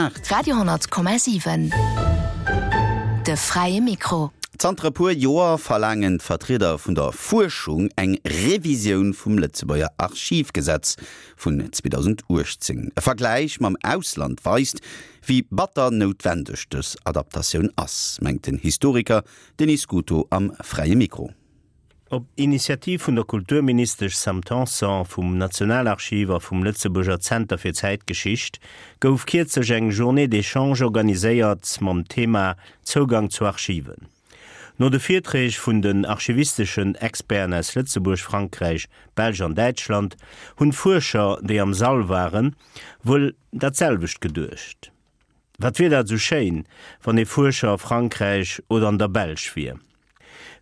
8. Radio 10,7 De fräie Mikro. Zanter e puer Joer verlaangen d'Vertrieder vun der Fuerschung eng Revisioun vum Lëtzebuerger Archivgesetz vun 2018. E Vergläich mam Ausland weist, wéi batter noutwendeg dës Adaptatioun ass, mengt den Historiker Denis Scuto am Fräie Mikro. Op Initiativ vun der Kulturministesch Sam Tanson, vum Nationalarchiv a vum Lëtzebuerger Zenter fir Zäitgeschicht gouf kierzlech eng Journée d'échange organiséiert mam Thema Zougang zu Archiven. No de Virträg vun den archivisteschen Experten aus Lëtzebuerg, Frankräich, Belsch an Däitschland hunn d'Fuerscher, déi am Sall waren, wuel dat selwecht geduecht. Wat wier dat esou schéin, wann ee Fuerscher a Frankräich oder an der Belsch wier.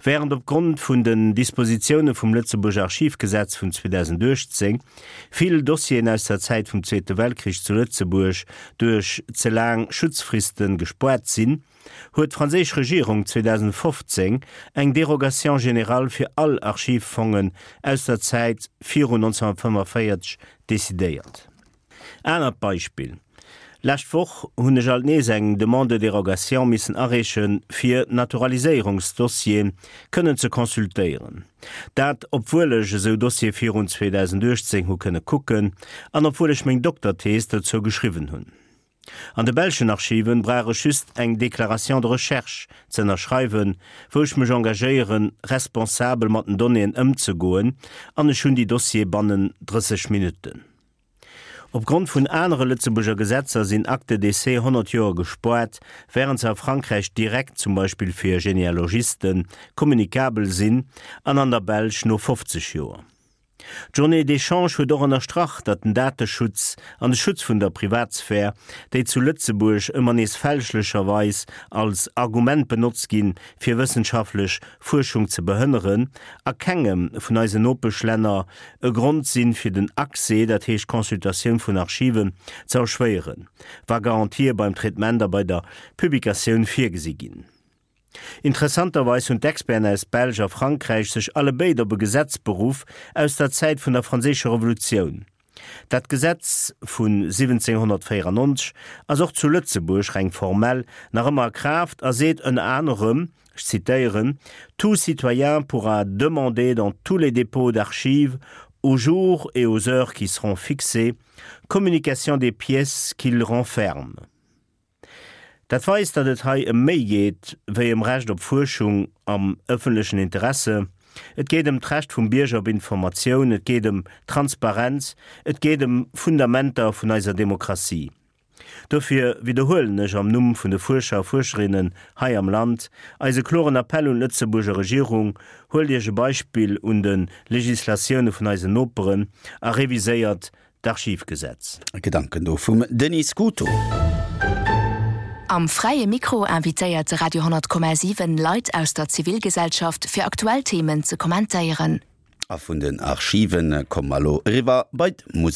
Während opgrond vun den Dispositioune vum Lëtzebuerger Archivgesetz vun 2018 vill Dossieren aus der Zäit vum Zweete Weltkrich zu Lëtzebuerg duerch ze laang Schutzfriste gespoart sinn, huet d'franséisch Regierung 2015 eng Dérogation générale fir all Archivfongen aus der Zäit virun 1945 decidéiert. Anert Beispill, Lescht Woch hunn ech alt nees eng Demande de dérogation missen areeche fir Naturaliséierungsdossiere kënnen ze consultéieren. Dat obwuel ech esou Dossiere virun 2018 hu kënne kucken an obwuel ech meng Dokterthees dozou geschriwwen hunn. An de belschen Archiven brauch ech just eng Déclaration de recherche ze ënnerschreiwen, wou ech mech engagéieren, responsabel mat den Donnéeën ëmzegoen, an ech hunn déi Dossiere bannen 30 Minutten. Opgrond vun anere Lëtzebuerger Gesetzer sinn Actes de décès 100 Joer gespoart, wärend se a Frankräich direkt, zum Beispill fir Genealogisten, kommunikabel sinn an an der Belsch no 50 Joer. D'Journée d'échange huet och ënnerstrach, datt den Dateschutz an de Schutz vun der Privatsphär, déi zu Lëtzebuerg ëmmer nees fälschlecherweis als Argument benotzt ginn, fir wëssenschaftlech Fuerschung ze behënneren, a kengem vun eisen Nopeschlänner e Grond sinn, fir den Accès, dat heescht d'Consultatioun vun Archiven, ze erschwéieren, wa Garantië beim Traitement a bei der Publikatioun virgesi ginn. Interessanterweis hunn d'Experten aus Belsch a Frankräich sech allebéid op e Gesetz beruff aus der Zäit vun der Franséischer Revolutioun. Dat Gesetz vu 1794 ass och zu Lëtzebuerg, reng formell, nach ëmmer a Kraaft a seet ënner anerem, ech zitéieren, Tout citoyen pourra demander dans tous les dépôts d'archives, aux jours et aux heures qui seront fixés, communication des pièces qu'ils renferment. Dat weist, datt et hei ëm méi geet wéi ëm Recht op Fuerschung am ëffentlechen Interesse. Et geet ëm d'Recht vum Bierger op Informatioun, et geet ëm Transparenz, et geet ëm Fundamenter vun eiser Demokratie. Dofir widderhuelen ech am Numm vun de Fuerscher a Fuerscherinnen hei am Land eise kloren Appell un d'Lëtzebuurger Regierung, Huelt Iech e Beispill un de Legislatioune vun eisen Noperen a reviséiert d'Archivgesetz. Gedanken do vum Denis Scuto. Am Fräie Mikro invitéiert de Radio 10,7 Leit aus der Zivilgesellschaft fir aktuell Themen ze kommentéieren. A vun den Archiven komme mer elo eriwwer bei d'Musek.